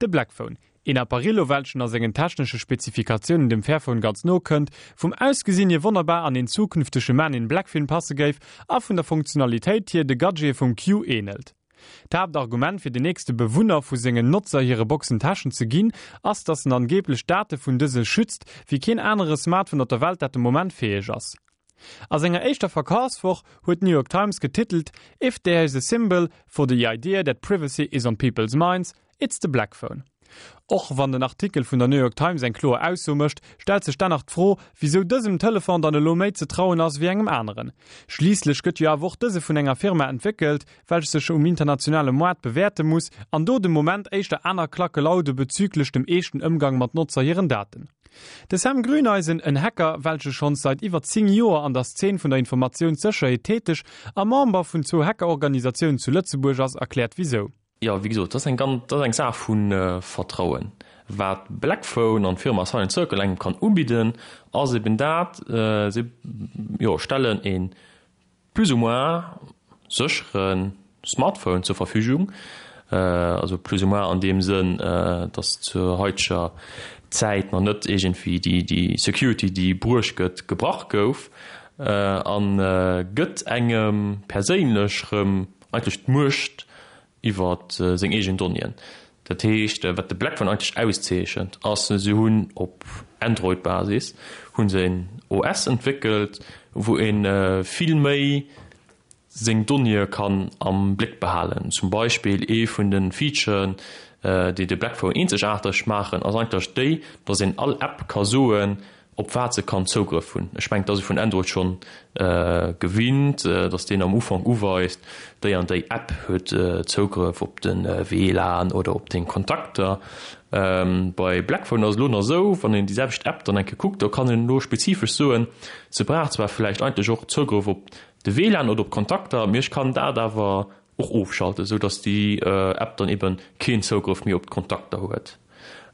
De Blackphone, een Apparillo welchen a sengen technesche Spezifikatiounen dem Fairphone ganz no kënnt, vum Ausgesinn hier wonnerbar an een zukünftege Man in Black Film passe géif a vun der Funktionalitéit hier de Gadgete vum Q ähnelt. D'Haaptargument fir den nächste Bewunner vu sengen Notzer hire Boxen Täschen ze ginn, ass dass en angeeblech d'Date vun dëse schützt wéi keen anere Smartphone op der Welt dat de Moment fäeg ass. A senger éischter Verkafswoch huet d'New York Times getitelt, If there is a symbol for the idea that privacy is on people's minds, it's the black phone. Och wann den Artikel vun der New York Times eng kloer Ausso mécht, stellt sech dann nach d'Fro, wisou dësem Telefon dann elo méi ze trauen ass wéi engem aneren. Schliisslech gëtt jo awer och dëse vun enger Firma entwéckelt, welch sech um internationale Moart bewäerte muss an do de Moment éischter aner Klacke laude bezüglech dem eeschten Ëmgang mat Notzer hiren Daten. De Sam Grüneisen, en Hacker, welche schonns seit iwwer 10 Joer an der Szene vun der Informatiounssécherheet täteg a Member vun zwou Hackerorganisatiounen zu Lëtzebuerg ass, erkläert wisou. Jo, wéi gesot, dat ass eng ganz, dat ass eng Saach vu Vertrauen. Wat Blackphone an d'Firma Silent Circle engem kann ubidden, ass eben dat, si, jo, stellen e plus ou moins séchere Smartphone zur Verfügung, also plus ou moins an deem Sënn, dass zur haiteger Zäit nach net iergendwéi déi, déi Security, déi bruecht gëtt, gebrach gouf, a gëtt engem perséinlech rëm eigentlech d'Muecht iwwer seng eegen Donnéeën. Dat heescht, wat de Blackphone eigentlech auszeechent, ass, se hunn op Android-Basis hu se en OS entwéckelt, wou ee vill méi seng Donnéeë kann am Bléck behalen. Zum Beispill ee vun de Featuren, déi de Blackphone eenzegaarteg maachen, ass eigentlech déi, datt een all App ka soen, op wat se kann Zougrëff hunn. Ech mengen, et ass ee vun Android schonn gewinnt, datt deen am Ufank uweist, déi an déi App huet Zougrëff op de WLAN oder op deng Kontakter. Bei Blackphone ass et elo nach esou, wann een déi selwecht App dann eng Kéier kuckt, do kann een elo spezifesch soen, se brauch zwar vläicht eigentlech och Zougrëff op de WLAN oder op d'Kontakter, mee ech kann dat awer och ofschalten, esou datt déi App dann eben keen Zougrëff méi op d'Kontakter huet.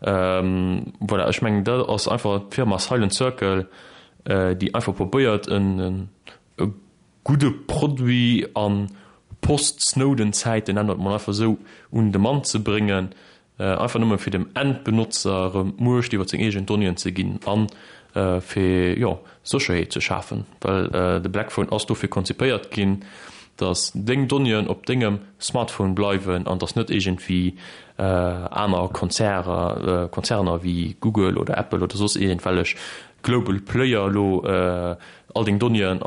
Voilà, ech mengen dat ass einfach d'Firma Silent Circle, déi einfach probéiert en e gudde Produit a Post-Snowden-Zäiten, nennen mer et mol einfach esou, un de Mann ze bréngen, Einfach nëmme fir dem Endbenotzer erëm d'Muecht iwwer seng eegen Donnéeën ze ginn a fir, jo, Sécherheet ze schafen. Well de Blackphone ass dofir konzipéiert ginn, datt deng Donnéeën op dengem Smartphone bleiwen an datt net iergendwéi aner Konzerner, Konzerner wéi Google oder Apple oder soss iergendwellech Global Player elo all deng Donnéeën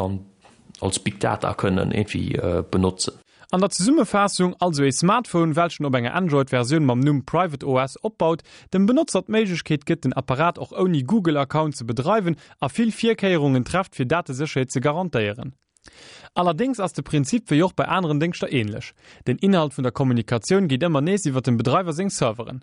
als Big Data kënnen iergendwéi benotzen. An der Zesummefaassung, also ee Smartphone welchen op enger Android-Versioun mam Numm Private OS opbaut, dem Benotzer d'Méiglechkeet gëtt den Apparat och ouni Google-Account ze bedreiwen a vill Virkéierungen trefft fir Datesécherheet ze garantéieren. Allerdéngs ass de Prinzip wéi och bei aneren Déngschter ähnlech, Den Inhalt vun der Kommunikatioun geet ëmmer nees iwwer dem Bedreiwer seng Serveren.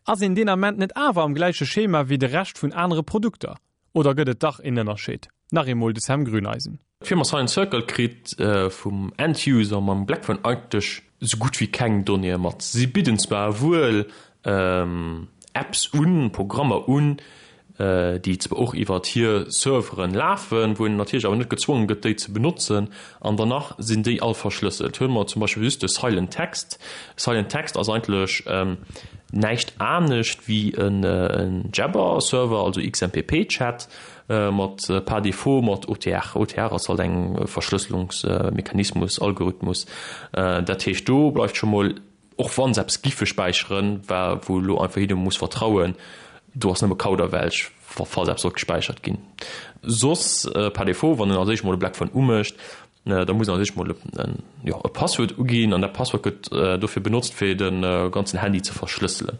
Ass een deen Ament net awer am gläiche Schema wéi de Rescht vun anere Produkter? Oder gëtt et dach een Ënnerscheed? Nach eemol de Sam Grüneisen. D'Firma Silent Circle kritt vum End-User mam Blackphone eigentlech sou gutt wéi keng Donnéeë mat. Si bidden zwar wuel Apps un, Programmer un, déi zwar och iwwert hir Serveren lafen, wou een natierlech awer net gezwongen gëtt, déi ze benotzen, an danach sinn déi all verschlësselt. Huele mer zum Beispill just de Silent Text. Silent Text ass eigentlech näischt anescht wéi en Jabber-Server, also XMPP-Chat, mat par défaut mat OTR. OTR ass halt eng Verschlësselungsmechanismus, Algorithmus. Dat heescht do bleift scho mol, och wann se eppes giffe späicheren, wa wou elo einfach jidderem muss vertrauen, do ass nëmme Kauderwelsch, falls eppes sollt gespäichert ginn. Soss par défaut, wann en als éischt mol e Blackphone umécht, Da muss een als éischt mol e Passwuert uginn an dat Passwuert gëtt dofir benotzt, fir de ganzen Handy ze verschlësselen.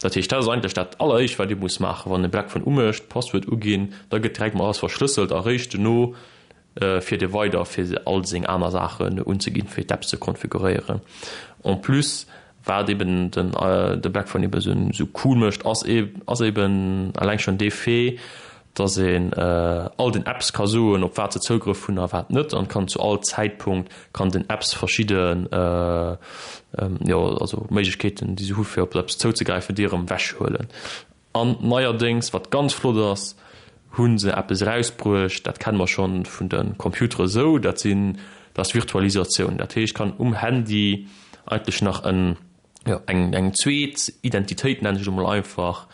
Dat heescht, dat ass eigentlech dat alleréischt, wat ee muss maachen, wann e Blackphone umécht, Passwuert uginn, da gëtt direkt mol alles verschlësselt a réischt dono fiert ee weider, fir all seng aner Saachen unzeginn, fir d'Apps ze konfiguréieren. En plus Wat eben den de Blackphone eben esou cool mécht, ass ass eben eleng schonn dee Fait, dass een all den Apps ka soen, op wat se Zougrëff hunn a wat net, an kann zu all Zäitpunkt kann den Apps verschidde jo also Méiglechkeeten, déi se hu fir op eppes zouzegräifen, déi erëm ewechhuelen. An neierdéngs, wat ganz flott ass, hu se eppes erausbruecht, dat kenne mer schonn vun de Computere sou, dat sinn, dat ass Virtualisatioun. Dat heescht, kann um Handy eigentlech nach en. Jo, eng, eng zweet Identitéit, nennen ech et emol einfach,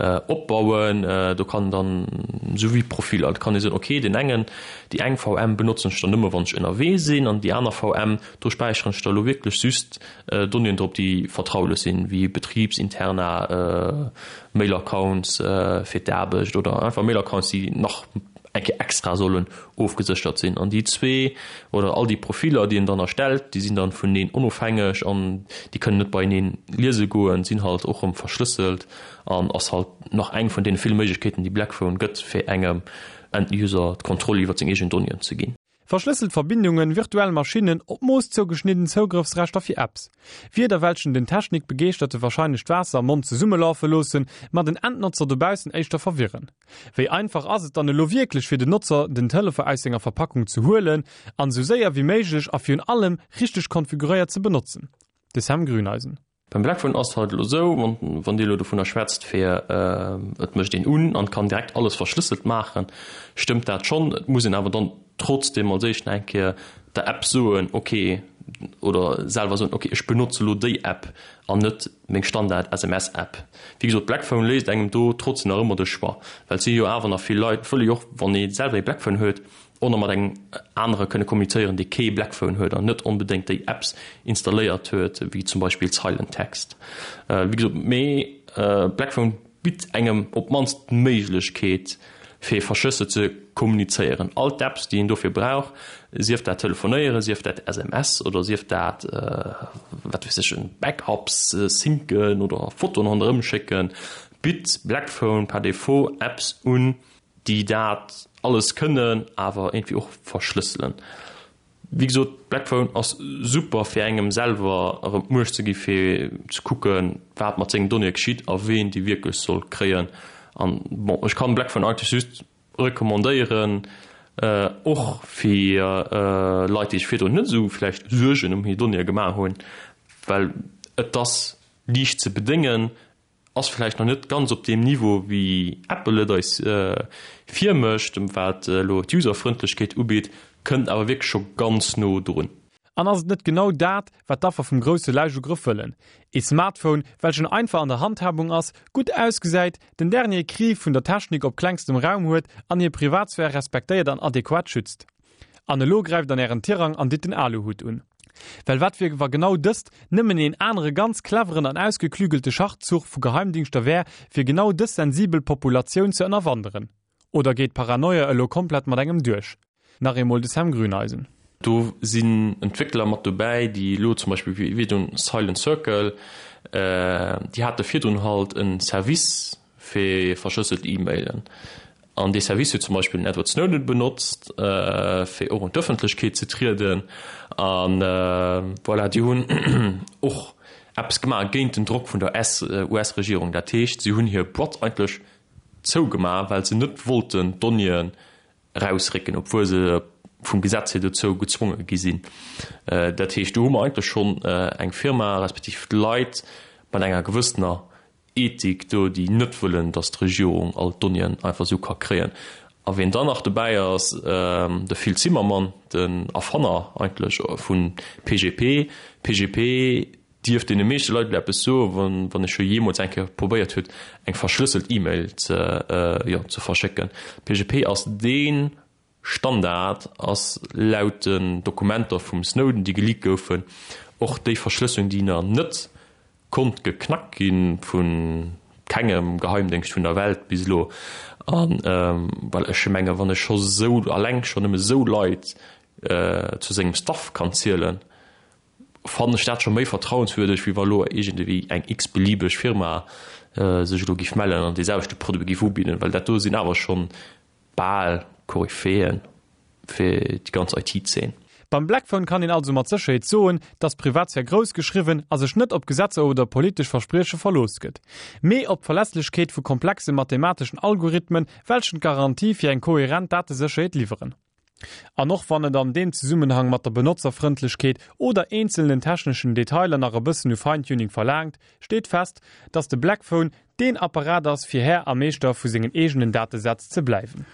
opbauen. Do kann dann, esou wéi Profiller, do kann ee soen, okay, deen engen, déi eng VM benotzen ech dann nëmme wann ech ënnerwee sinn an déi aner VM, do späicheren ech da elo wierklech just Donnéeën drop, déi vertraulech sinn, wéi Betribsinterna, Mail-Accounts fir d'Aarbecht oder einfach Mail-Accounts, déi nach eng Kéier extra sollen ofgeséchert sinn. An déi zwee oder all déi Profiller, déi een dann erstellt, déi sinn dann vuneneen onofhängeg an déi kënnen net beieneen liese goen, sinn halt och erëm verschlësselt an ass halt nach eng vun deene ville Méiglechkeeten, déi Blackphone gëtt, fir engem End-User d'Kontroll iwwer seng eegen Donnéeën ze ginn. Verschlësselt Verbindungen, virtuell Maschinnen, op d'Mooss zougeschnidden Zougrëffsrechter fir Apps. Wierder welchen den Technikbegeeschterte wahrscheinlech d'Waasser am Mond zesummelafe loossen, ma den Endnotzer dobaussen éischter verwirren. Wéi einfach ass et dann elo wierklech fir den Notzer den Telefon aus senger Verpackung ze huelen an esou séier wéi méiglech a virun allem richteg konfiguréiert ze benotzen? De Sam Grüneisen. Beim Blackphone ass et halt elo esou, wann Dir elo dovunner schwätzt fir et mécht een un an kann direkt alles verschlësselt maachen, stëmmt dat schonn. Et muss een awer dann trotzdem als éischt nach eng Kéier der App soen, ok, oder selwer soen, ok ech benotze elo déi App an net meng Standard SMS App. Wéi gesot, Blackphone léisst engem do trotzdem nach ëmmer de Choix, well et si jo awer nach vill Leit, wëlle jo och wann ee selwer ee Blackphone huet, och nach mat engem anere kënne kommunizéieren, dee kee Blackphone huet an net onbedéngt déi Apps installéiert huet, wéi zum Beispill Silent Text. Wéi gesot, mee Blackphone bitt engem op d'mannst d'Méiglechkeet, fir verschlësselt ze kommunizéieren. All d'Apps, déi een dofir brauch, sief dat Telefonéieren, sief dat SMS oder sief dat, wat weess ech, Backups syncen oder Fotoen ronderëm schécken, bitt Blackphone par défaut Apps un, déi dat alles kënnen, awer iergendwéi och verschlësselen. Wéi gesot, Blackphone ass super fir engem selwer erëm d'Muecht ze gi fir ze kucken, wat mat sengen Donnéeë geschitt a ween déi wierklech soll kréien. An bon, ech kann Blackphone eigentlech just recommandéieren, och fir Leit, déi sech virdrun net esou vläicht Suergen ëm hir Donnéeë gemaach hunn, well et ass liicht ze bedéngen, Ass vläicht nach net ganz op deem Niveau wéi Apple et eis virmécht, wat elo d'Userfrëndlechkeet ugeet, kënnt awer wierklech scho ganz no drun. An ass et net genau dat, wat d'Affer vum grousse Läichugrëff wëllen? Ee Smartphone, welchen einfach an der Handhabung ass, gutt ausgesäit, den dernier Cri vun der Technik op klengstem Raum huet an hir Privatsphär respektéiert an adequat schützt. An elo gräift an ären Tirang an ditt den Aluhut un. Well wat wier wa genau dëst nëmmen een anere ganz cleveren an ausgeklügelte Schachzuch vu Geheimdingschter wär, fir genau dës sensibel Populatioun ze ënnerwanderen? Oder geet d'Paranoia elo komplett mat engem duerch? Nach eemol de Sam Grüneisen. Do sinn Entwéckler mat dobäi, déi elo zum Beispill wéi virdrun Silent Circle, déi hate virdrun halt e Service fir verschlësselt E-Mailen. An dee Service huet zum Beispill den Edward Snowden benotzt, fir och un d'Ëffentlechkeet ze trieden. A voilà, déi hunn och eppes gemaach géint den Drock vun der US-Regierung. Dat heescht, si hunn hir Boîte eigentlech zougemaach, well se net wollten d'Donnéeën erausrécken, obwuel se vum Gesetz hier dozou gezwonge gi sinn. Dat heescht, do hu mer eigentlech schonn eng Firma respektiv Leit mat enger gewëssener Ethik do, déi net wëllen, datt d'Regierung all d'Donnéeën einfach esou ka kréien. A wien dann nach dobäi ass, de Phil Zimmermann, den Erfanner eigentlech vu PGP. PGP dierft deene meeschte Leit elo eppes soen, wann ee scho jeemools eng Kéier probéiert huet, eng verschlësselt E-Mail ze, jo, ze verschécken. PGP ass dee Standard ass laut den Dokumenter vum Snowden, déi geleakt goufen, och déi Verschlësselung, déi nach net konnt geknackt gi vu kengem Geheimdéngscht vun der Welt bis elo. A well ech menge wann ech scho sou alleng scho nëmme sou Leit zu sengem Staff kann zielen, fannen ech dat scho méi vertrauenswürdeg, wéi wa lo iergendewéi eng x-beliebeg Firma sech elo giff mellen an dee selwechte Produit giff ubidden, well dat do sinn awer schonn bal Koryphéen fir déi ganz IT-Zeen. Beim Blackphone kann een also mat Sécherheet soen, dass Privatsphär grouss geschriwwen a sech net op Gesetzer oder politesch Versprieche verlooss gëtt, mee op d'Verlässlechkeet vu komplexe mathemateschen Algorithmen, welchen d'Garantie fir eng kohärent Datesécherheet liwweren. An och wann et an deem Zesummenhang mat der Benotzerfrëndlechkeet oder eenzelnen techneschen Detailer nach e bëssen u Feintuning verlaangt, steet fest, dass de Blackphone deen Apparat ass fir Här a Meeschter vu sengen eegenen Datesätz ze bleiwen.